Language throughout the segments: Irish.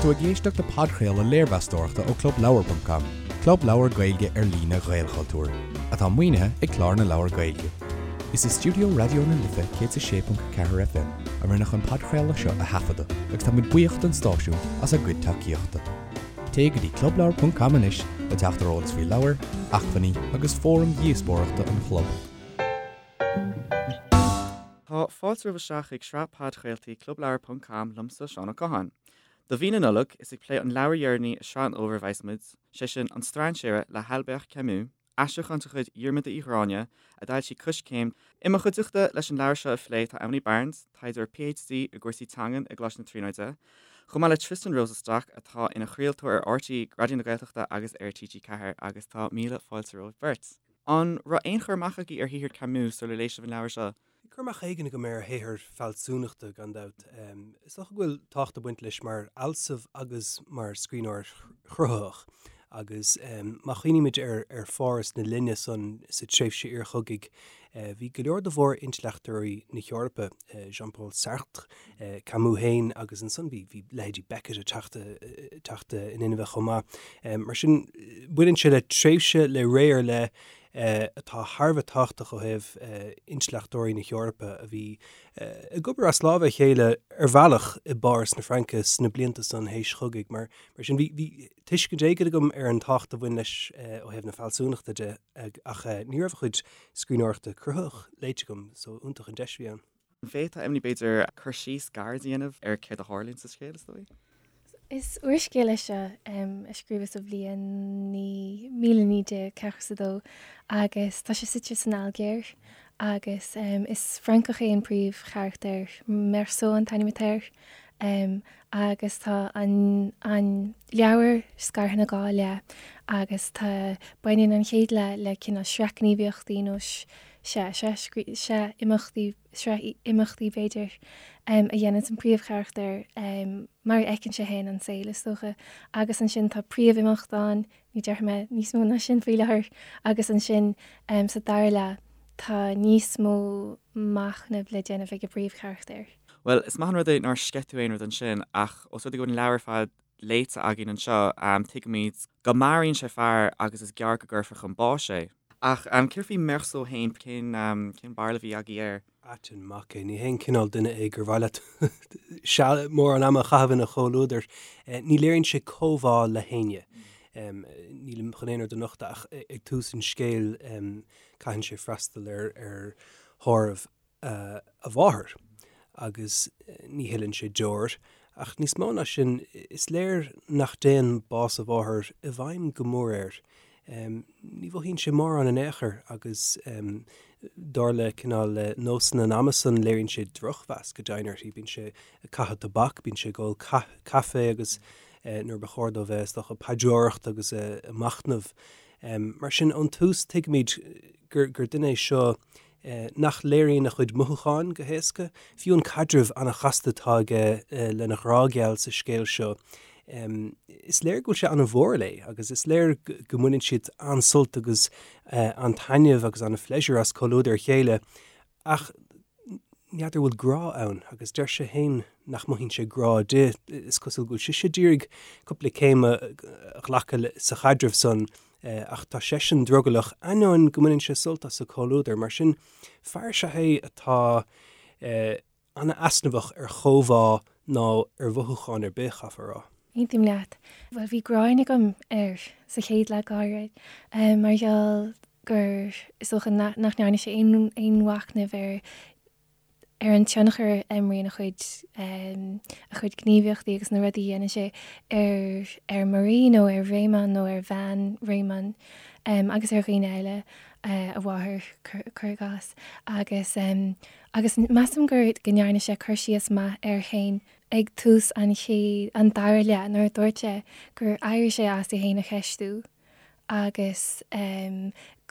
tú ag éisteacht le podchraoladh léirmheastóireachta ó ClubLeabhar.com, club leabhar Gaeilge ar líne Ghaelchultúir, atá maoinithe ag Clár na Leabhar Gaeilge. Is i stiúideo Raidió na Life 106.4 FM a rinneadh an podchraoladh seo a thaifeadadh agus tá muid buíoch don stáisiún as a gcuid tacaíochta. Téigh go dtí clubleabhar.com anois le teacht ar eolas faoi leabhair, acmhainní agus fóraim dhíospóireachta an chlub. Tá fáilte romhaibh isteach chuig sraith podchraoltaí Clubleabhar ponc com liomsa, Seán Ó Catháin. Do mhí na Nollag, is ag plé an leabhair dheireanaí i sraith an fhómhair a bheas muid, sé sin An Strainséara le hAlbert Camus, aistriúchán de chuid Dhiarmuda Uí Ghráinne, a d'fhoilsigh Coiscéim. I mo chuideachta leis an leabhar seo a phlé tá Emily Barnes, taighdeoir PhD i gcúrsaí teangan i gColáiste na Tríonóide, chomh maith le Tristan Rosenstock atá ina chraoltóir ar RTÉ Raidió na Gaeltachta agus ar TG4 agus tá míle fáilte romhaibh beirt. An raibh aon chur amach agaibh ar shaothar Camus sular léigh sibh an leabhar seo? Bhí cur amach éigin agam ar a shaothar fealsúnachta, gan dabht. Is dócha go bhfuil tábhacht ag baint leis mar fhealsamh agus mar scríbhneoir cruthaitheach. Agus má chuimhnímid ar Pháras na linne san, sa tréimhse iarchogaidh, bhí go leor de mhór-intleachtóirí na hEorpa, Jean-Paul Sartre, Camus féin agus ansan bhí leithéidí Beckett ag teacht in inmhe chomh maith. Mar sin, baineann sé le tréimhse, le ré ar leith atá thar a bheith tábhachtach ó thaobh intleachtóirí na hEorpa a bhí ag obair as lámha a chéile ar bhealach i bPáras na Fraince sna blianta san théis chogaidh. Mar sin, bhí tuiscint éigin agam ar an tábhacht a bhain leis ó thaobh na fealsúnachta de ach ní raibh a chuid scríbhneoireachta cruthaitheach léite agam, so iontach an deis a bhí ann. An bhféadfá, Emily, b'fhéidir, cur síos gairid a dhéanamh ar céard a tharlaíonn sa scéal, is dóigh? Is úrscéal é seo a scríobhadh sa bhliain 1942 agus tá sé suite san Ailgéir agus is Francach é an príomhcharachtar, Meursault an t-ainm atá air, agus tá an an leabhar scartha ina dhá leath agus tá baineann an chéad leath le cineál sraith gníomhaíochtaí nó sea, sraith imeachtaí, sraith imeachtaí b'fhéidir, a dhéananns an príomhcharachtar mar a fheiceann sé féin an saol, is dócha. Agus ansin tá príomhimeacht ann, ní déarfaidh mé níos mó ná sin faoi láthair, agus ansin sa dara leath tá níos mó machnaimh le déanamh ag an bpríomhcharachtar. Bhuel, is maith an rud é nár sceith tú aon rud ansin, ach os rud é go bhfuil an leabhar ar fad léite againn anseo, tuigimid go maraíonn sé fear agus is gearr go gcuirfear chun báis é. Ach céard faoi Meursault féin, cén cén barúil a bhí agaibh air? Ait an mac é. Ní haon cineál duine é gur mhaith leat seal mórán ama a chaitheamh ina chomhluadar. Ní léiríonn sé comhbhá le héinne. Nílim chun aon rud a nochtadh ach ag tús an scéil caitheann sé freastal ar ar thórramh a mháthar agus ní shileann sé deoir. Ach níos mó ná sin, is léir nach dtéann bás a mháthar i bhfeidhm go mór air. Ní mhothaíonn sé mórán in aon chor agus dar le cineál nósanna an ama san, léiríonn sé drochmheas go deimhin uirthi. Bíonn sé ag caitheamh tobac, bíonn sé ag ól caife agus nuair ba chóir dó bheith, is dócha, ag paidreoireacht agus ag machnamh. Mar sin, ón tús tuigimid gur duine é seo nach léiríonn a chuid mothúcháin go héasca. Fiú an caidreamh an-chasta atá aige lena ghrá geal sa scéal seo, is léir go bhfuil sé an-mhór léi agus is léir go mbaineann siad an-sult agus an-taitneamh agus an-phléisiúr as comhluadar a chéile ach n'fheadar bhfuil grá ann agus deir sé féin nach mothaíonn sé grá di. Is cosúil go bhfuil sise d'iarraidh cúpla céim a ghlacadh sa chaidreamh san Ach tá seisean drogallach, ainneoin go mbaineann sé sult as a comhluadar. Mar sin, fear is ea é atá an-easnamhach ar chomhbhá ná ar mhothúcháin ar bith, chaithfeá a rá. Aontaím leat. Bhuel, bhí gráin agam air sa chéad leath go háirid, mar gheall gur, is dócha, nach ndearna sé aon mhachnamh ar ar an tionchar a imríonn a chuid a chuid gníomhaíochtaí agus na rudaí a dhéanann sé ar ar Marie nó ar Raymond nó ar bhean Raymond agus ar dhaoine eile, a mháthair, cuir i gcás. Agus agus measaim gur go ndearna sé cur síos maith air féin ag tús an chéad an dara leath nuair a dúirt sé gur éirigh sé as é féin a cheistiú agus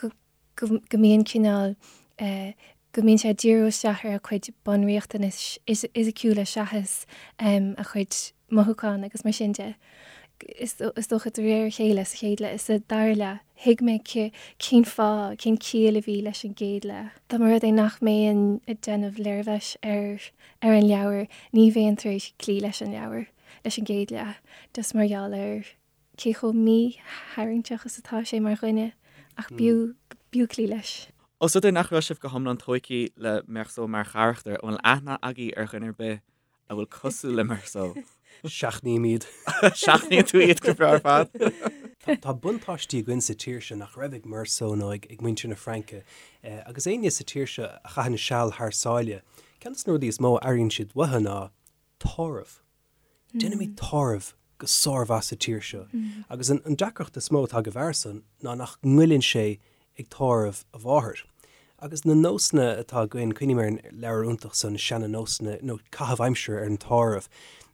go go mbíonn cineál, go mbíonn sé ag díriú isteach ar a chuid bunriachtanais fhisiciúla seachas a chuid mothúchán agus mar sin de. Is dócha de réir a chéile sa chéad leath, sa dara leath, thuig mé cén fáth, cén chiall a bhí leis an gcéad leath. Dá mba rud é nach mbeinn ag déanamh léirmheas ar ar an leabhar, ní bheinn tar éis cloí leis an leabhar. leis an gcéad leath, just mar gheall ar cé chomh mítharraingteach is atá sé mar dhuine, ach b'fhiú, b'fhiú cloí leis. Ós rud é nach raibh sibh go hiomlán tóigthe le Meursault mar charachtar, an bhfuil aithne agaibh ar dhuine ar bith a bhfuil cosúil le Meursault? Seachnaím iad. Seachnaíonn tú iad go breá ar fad. Tá buntáistí againn sa tír seo nach raibh ag Meursault nó ag muintir na Fraince. Agus éinne sa tír seo a chaitheann seal thar sáile, ceann de na rudaí is mó a airíonn siad uathu ná tórramh. Déanaimid tórramh go sármhaith sa tír seo. Agus an deacracht is mó atá ag an bhfear san ná nach ngoilleann sé ag tórramh a mháthar. Agus na nósanna atá againn, cuimhním ar an leabhar iontach san, Seana-Nósanna, nó Caitheamh Aimsire ar an Tórramh.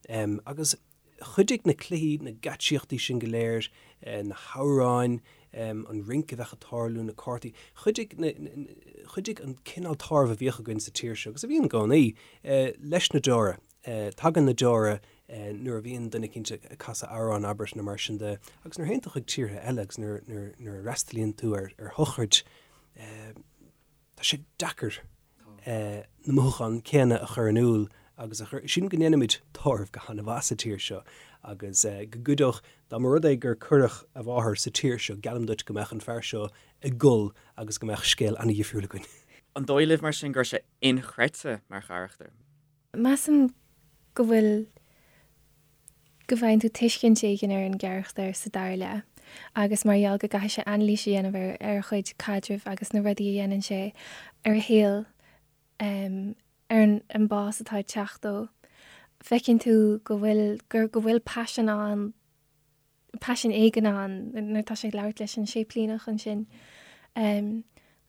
Agus chuidigh na cluichí, na geáitsíochtaí sin go léir, na hamhráin, an rince a bheadh ag tarlú, na cártaí, chuidigh na, chuidigh an cineál tórraimh a bhíodh againn sa tír seo, agus a bhíonn i gcónaí, leis na deora. Tagann na deora nuair a bhíonn duine eicínt ag casadh amhrán, abair, nó mar sin de, agus nuair a théann tú chuig tíortha eile agus nuair a fhreastalaíonn tú ar shochraid, tá sé deacair na mothúcháin céanna a chur in iúl agus a chur, sílim go ndéanaimid tórramh go han-mhaith sa tír seo agus go gcuideodh, dá mba rud é gur cuireadh a mháthair sa tír seo, geallaim duit go mbeadh an fear seo ag gol agus go mbeadh scéal an-dhifriúil againn. An dóigh libh mar sin go raibh sé inchreidte mar charachtar? Measaim go bhfuil, go bhfaigheann tú tuiscint éigin ar an gcarachtar sa dara leath agus mar gheall go gcaithfidh sé anailís a dhéanamh ar ar a chuid caidrimh agus na rudaí a dhéanann sé ar a shaol, ar an bás atá ag teacht dó, feiceann tú go bhfuil, gur, go bhfuil paisean ann, paisean éigin ann nuair atá sé ag labhairt leis an séiplíneach ansin.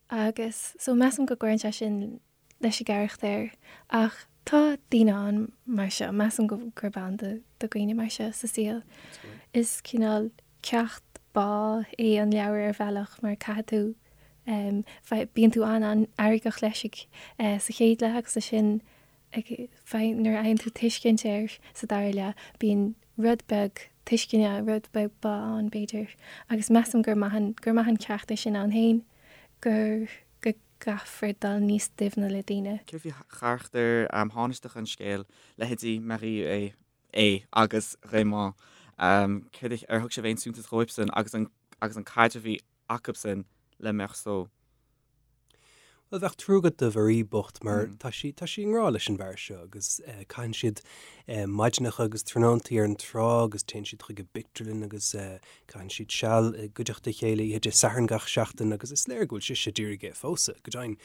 Agus so measaim go gcuireann sé sin leis an gcarachtar ach tá daoine ann mar seo, measaim go gurb ann do dhaoine mar seo sa saol. Is cineál ceacht bá é an leabhar ar bhealach mar caithfidh tú, bíonn tú an-an-fheargach leis ag sa chéad leath agus ansin nuair a fhaigheann tú tuiscint air sa dara leath bíonn rud beag tuisceana, rud beag bá ann b'fhéidir agus measaim gur maith an, gur maith an ceacht é sin ann féin gur, go gcaithfear dul níos doimhne le daoine. Céard faoi charachtair thánaisteacha an scéil, leithéidí Marie é, é agus Raymond? Céard, ar thug sibh aon suntas dhóibhsan agus an, agus an caidreamh a bhí acubsan le Meursault? Bhuel, bheadh trua agat do Mharie bocht mar tá sí, tá sí i ngrá leis an bhfear seo agus caitheann siad maidineacha agus tráthnóntaí ar an trá agus téann siad chuig an bpictiúrlann agus caitheann siad seal i gcuideachta a chéile oíche Dé Sathairn gach seachtain agus is léir go bhfuil sise d'iarraidh é a phósadh, go deimhin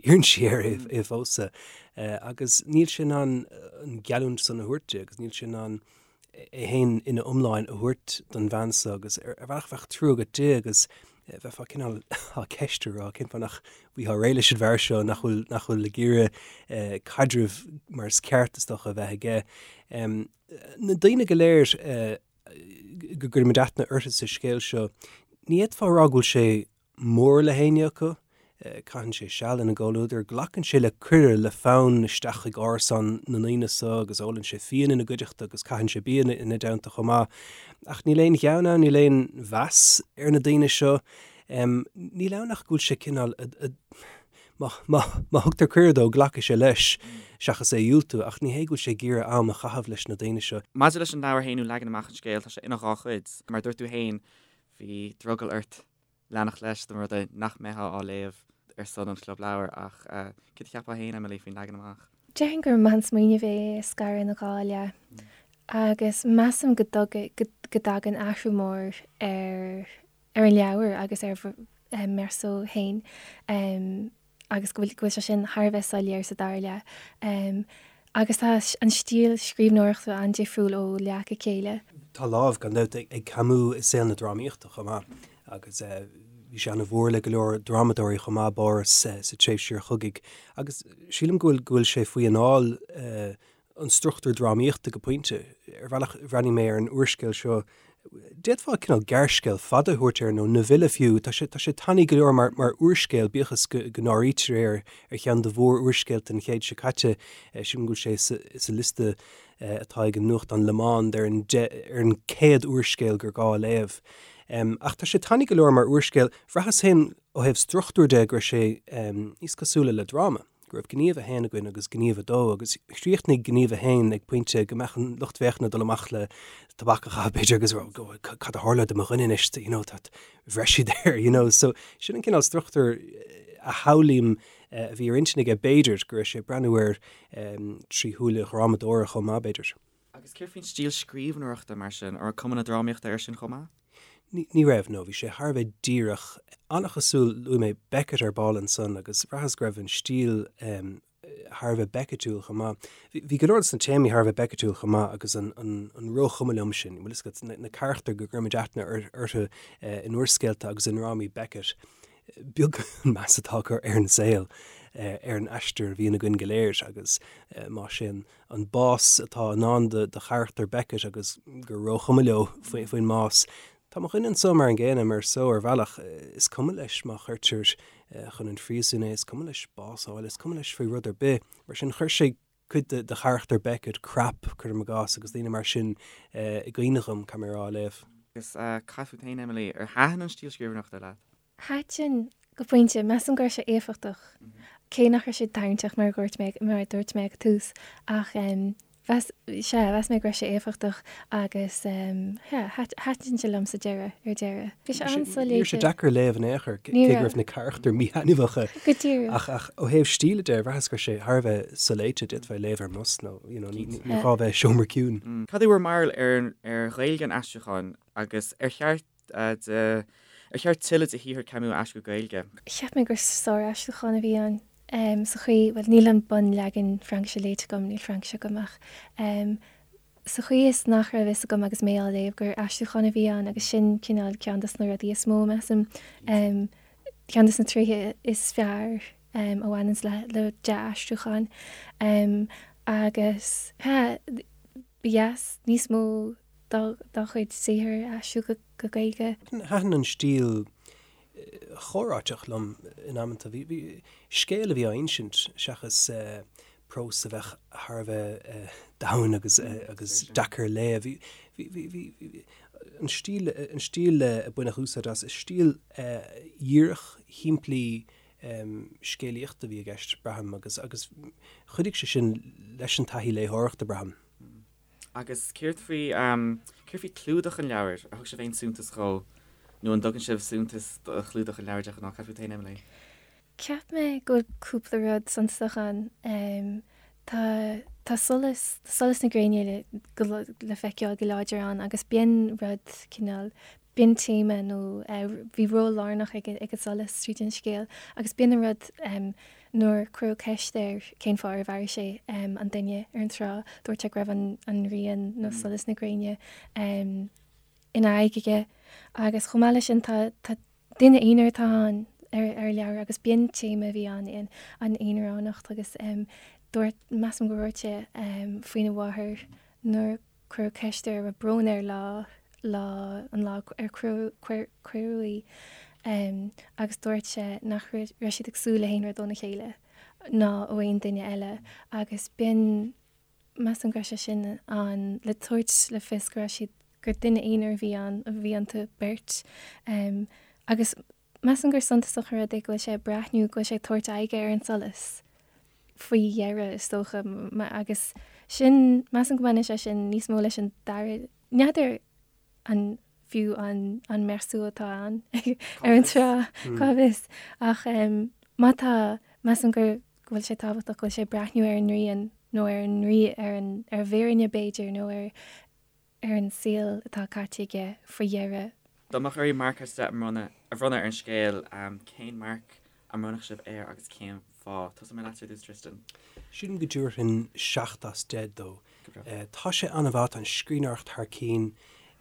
iarrann sí air é a phósadh agus níl sé in ann an gheallúint san a thabhairt di agus níl sé in ann é féin ina iomláine a thabhairt don bhean seo agus ar bhealach bheadh trua agat di agus bheifeá cineál á ceistiú rá cén fáth nach bhfaightheá réidh leis an bhfear seo nach bhfuil nach bhfuil ag iarraidh caidreamh mar is ceart is dócha a bheith aige. Na daoine go léir go gcuirimid aithne orthu sa scéal seo, ní fhéadfá a rá go bhfuil sé mór le héinne acu. Caitheann sé seal ina gcomhluadar, glacann sé le cuireadh le fonn isteach chuig árasán na ndaoine so agus ólann sé fíon ina gcuideachta agus caitheann sé bia ina dteannta chomh maith. Ach níl aon ghean ann, níl aon mheas ar na daoine seo. Níl ann ach go bhfuil sé cineál, má thugtar cuireadh dó, glacfaidh sé leis seachas é a dhiúltú, ach ní hé go bhfuil sé ag iarraidh am a chaitheamh leis na daoine seo. Maidir leis an leabhar féin nó leagan amach an scéil, tá sé ina dhá chuid. Mar a dúirt tú féin, bhí drogall ort leanacht leis dá mba rud é nach mbeifeá á léamh ar son an Chlub Leabhar ach céard a cheapfá féin, Emily, faoin leagan amach? Déarfainn gur maith an smaoineamh é a scaradh ina dhá leath agus measaim go go dtagann athrú mór ar ar an leabhar agus ar Meursault féin. agus go bhfuil go bhfuil sé sin thar a bheith soiléir sa dara leath. Agus tá an stíl scríbhneoireachta an-difriúil ó leath go chéile. Tá lámh, gan dabht, ag Camus i saol na drámaíochta chomh maith agus bhí sé ana-mhór le go leor drámadóirí chomh maith, Boris, sa tréimhse iarchogaidh agus sílim go bhfuil go bhfuil sé faoi anáil an struchtúr drámaíochta go pointe. Ar bhealach, bhreathnaigh mé ar an úrscéal seo, d'fhéadfá cineál gearrscéal fada a thabhairt air, nó novella fiú. Tá sé, tá sé tanaí go leor mar, mar úrscéal, bíodh is go, go n-áirítear é ar, ar cheann de mhór-úrscéalta an chéid seo caite. Sílim go bhfuil sé sa, sa liosta atá ag an nuachtán Le Monde ar an, ar an 100 úrscéal gur gá a léamh. Ach tá sé tanaí go leor mar úrscéal. Bhraitheas féin ó thaobh struchtúir de go raibh sé níos cosúla le dráma. go raibh gníomh a haon againn agus gníomh a dó agus chríochnaigh gníomh a haon ag pointe go mbeadh an lucht féachana ag dul amach le tobac a chaitheamh b'fhéidir agus rá cad a tharla do mo dhuine anois, you know, tá bhreith siad air, you know. So sin an cineál struchtúr a shamhlaím a bhí ar intinn aige b'fhéidir, go raibh sé ag breathnú air trí shúile dhrámadóra chomh maith b'fhéidir. Agus céard faoin stíl scríbhneoireachta mar sin, an raibh cuma na drámaíochta air sin chomh maith? Ní raibh, no. Bhí sé thar a bheith díreach. An-chosúil, luaigh mé Beckett ar ball ansan agus bhraitheas go raibh an stíl thar a bheith Beckettiúil chomh maith. Bhí go leor de na téamaí thar a bheith Beckettiúil chomh maith agus an róchuma liom sin, bhfuil fhios agat, na carachtair go gcuirimid aithne orthu in úrscéalta agus i ndrámaí Beckett, beag an meas atá acu ar an saol, ar an aistear a bhíonn againn go léir agus más é an an bás atá i ndán do charachtar Beckett agus gur róchuma leo faoin mbás. Tá mo dhuine anso mar an gcéanna, Meursault, ar bhealach. Is cuma leis má chuirtear chun an phríosúin é, is cuma leis bás a fháil, is cuma leis faoi rud ar bith. Mar sin, chuir sé cuid de charachtar Beckett, Krapp, cuirim i gcás, agus daoine mar sin i gcuimhne dhom, caithfidh mé a rá, á léamh. Agus cad fút féin, Emily, ar thaitin an stíl scríbhneoireachta leat? Thaitin, go pointe. Measaim go raibh sé éifeachtach, cé nach raibh sé tarraingteach mar a dúirt mé, mar a dúirt mé ag an tús, ach mheas, sea, mheas mé go raibh sé éifeachtach agus yeah, thaitin sé liom sa deireadh, ar deireadh. Bhí sé an-soléite. Ní raibh sé deacair a léamh in aon chor, cé go raibh na carachtair míthaitneamhacha. Go díreach. Ach, ach ó thaobh stíle de, bhraitheas go raibh sé thar a bheith soléite, d'fhéadfá é a léamh ar an mbus nó, you know, ní gá bheith i seomra ciúin. Cad é bhur mbarúil ar, ar Ghaeilge an aistriúcháin agus ar cheart de, ar cheart tuilleadh de shaothar Camus a aistriú go Gaeilge? Cheap mé gur sár-aistriúchán a bhí ann sa chaoi, bhuel, níl an bunleagan Fraincise léite agam, níl Fraincis agam ach sa chaoi is nach raibh fhios agam agus mé á léamh gur aistriúchán a bhí ann agus sin cineál ceann dos na rudaí is mó, measaim, ceann dos na tréithe is fearr a bhaineanns le le dea-aistriúchán agus ba dheas níos mó dá chuid saothair a aistriú go Gaeilge. Thaitin an stíl chomhráiteach liom in amanta. Bhí scéal a bhí á insint seachas prós a bheadh thar a bheith domhain agus agus deacair a léamh. Bhí an stíl an stíl a baineadh úsáid as, is stíl dhíreach, shimplí scéalaíochta a bhí i gceist, braithim, agus agus chuidigh sé sin leis an taithí léitheoireachta, braithim. Agus céard faoi, céard faoi clúdach an leabhair? Ar thug sibh aon suntas dhó? Nó an dtugann sibh suntas do chlúdach an leabhair de ghnáth? Cad fút féin, Emily? Cheap mé go bhfuil cúpla rud suntasach ann. Tá, tá solas, tá solas na gréine le, go, le feiceáil go láidir ann agus b'in rud cineál, b'in téama nó bhí ról lárnach ag an solas tríd an scéal agus b'in an rud nuair cuireadh ceist air cén fáth ar mharaigh sé an duine ar an trá, dúirt sé go raibh an ghrian nó solas na gréine ina aghaidh aige agus chomh maith leis sin tá duine aonair atá ann ar ar leabhar agus b'in téama a bhí ann an aonaránacht agus dúirt, measaim go ndúirt sé faoina mháthair nuair Cuireadh ceist air an raibh brón air lá, lá, an lá ar cuireadh í agus dúirt sé nach raibh siad ag súil le haon rud óna chéile ná ó aon duine eile agus b'in, measaim go raibh sé sin ann le tabhairt le fios go raibh siad, gur duine aonair a bhí ann, a bhí iontu beirt agus Measaim gur suntasach an rud é go bhfuil sé ag breathnú, go bhfuil sé ag tabhairt aghaidhe ar an solas faoi dheireadh, is dócha, agus sin, measaim go mbaineann sé sin níos mó leis an dara, n'fheadar an fiú an an Meursault atá ann ar an trá, cá bhfios, ach má tá, measaim go go bhfuil sé tábhachtach go bhfuil sé ag breathnú ar an ngrian nó ar an ar an ar an bhfírinne b'fhéidir nó ar ar an saol atá caite aige faoi dheireadh. Dá mbeadh oraibh marc as 10 a bhronnadh a bhronnadh ar an scéal, cén marc a mbronnfadh sibh air agus cén fáth? Tosóidh mé leatsa ar dtús, Tristan. Sílim go dtabharfainn 7 as 10 dó. Tá sé an-mhaith, tá an scríbhneoireacht thar cinn.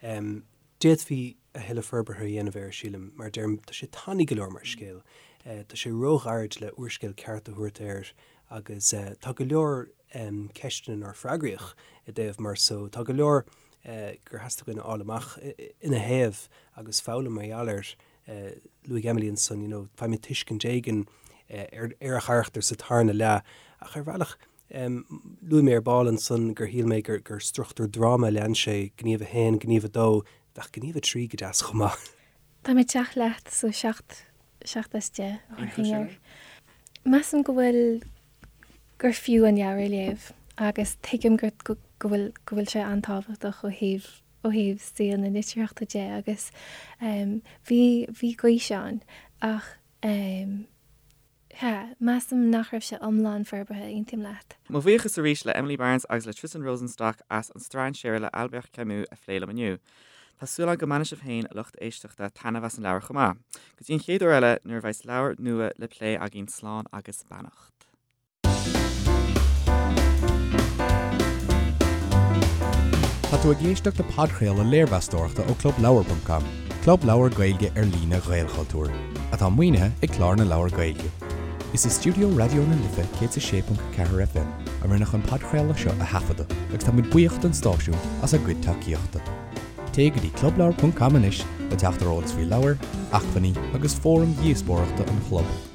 D'fhéadfaí a thuilleadh forbartha a dhéanamh air, sílim. Mar a deirim, tá sé tanaí go leor mar scéal. Tá sé róghairid le úrscéal ceart a thabhairt air agus tá go leor ceisteanna nár freagraíodh i dtaobh Meursault. Tá go leor gur theastaigh uainn a fháil amach ina thaobh agus foghlaim mar gheall air. Luaigh Emily ansan, you know, faighimid tuiscint éigin ar a charachtar sa tarna leath ach ar bhealach, luaigh mé ar ball ansan gur shíl mé gur struchtúr dráma a lean sé, gníomh a haon, gníomh a dó, bheadh gníomh a trí go deas chomh maith. Tá mé ag teacht leat, so 7, 7 as 10 a thabharfainn air. Measaim go bhfuil. gur fiú an leabhar a léamh agus tuigim go go bhfuil go bhfuil sé an-tábhachtach ó thaobh ó thaobh saol na litríochta de agus bhí bhí gaois ann ach sea, measaim nach raibh sé iomlán forbartha, aontaím leat. Mo bhuíochas arís le Emily Barnes agus le Tristan Rosenstock as An Strainséara le Albert Camus a phlé liom inniu. Tá súil agam go mbainfidh sibh féin, a lucht éisteachta, taitneamh as an leabhar chomh maith. Go dtí an chéad uair eile nuair a bheas leabhar nua le plé againn slán agus beannacht. Tá tú ag éisteacht le podchraoladh léirmheastóireachta ó ClubLeabhar.com, club leabhar Gaeilge ar líne Ghaelchultúir, atá maoinithe ag Clár na Leabhar Gaeilge. Is i stiúideo Raidió na Life 106.4 FM a rinneadh an podchraoladh seo a thaifeadadh agus tá muid buíoch don stáisiún as a gcuid tacaíochta. Téigh go dtí clubleabhar.com anois le teacht ar eolas faoi leabhair, acmhainní agus fóraim dhíospóireachta an chlub.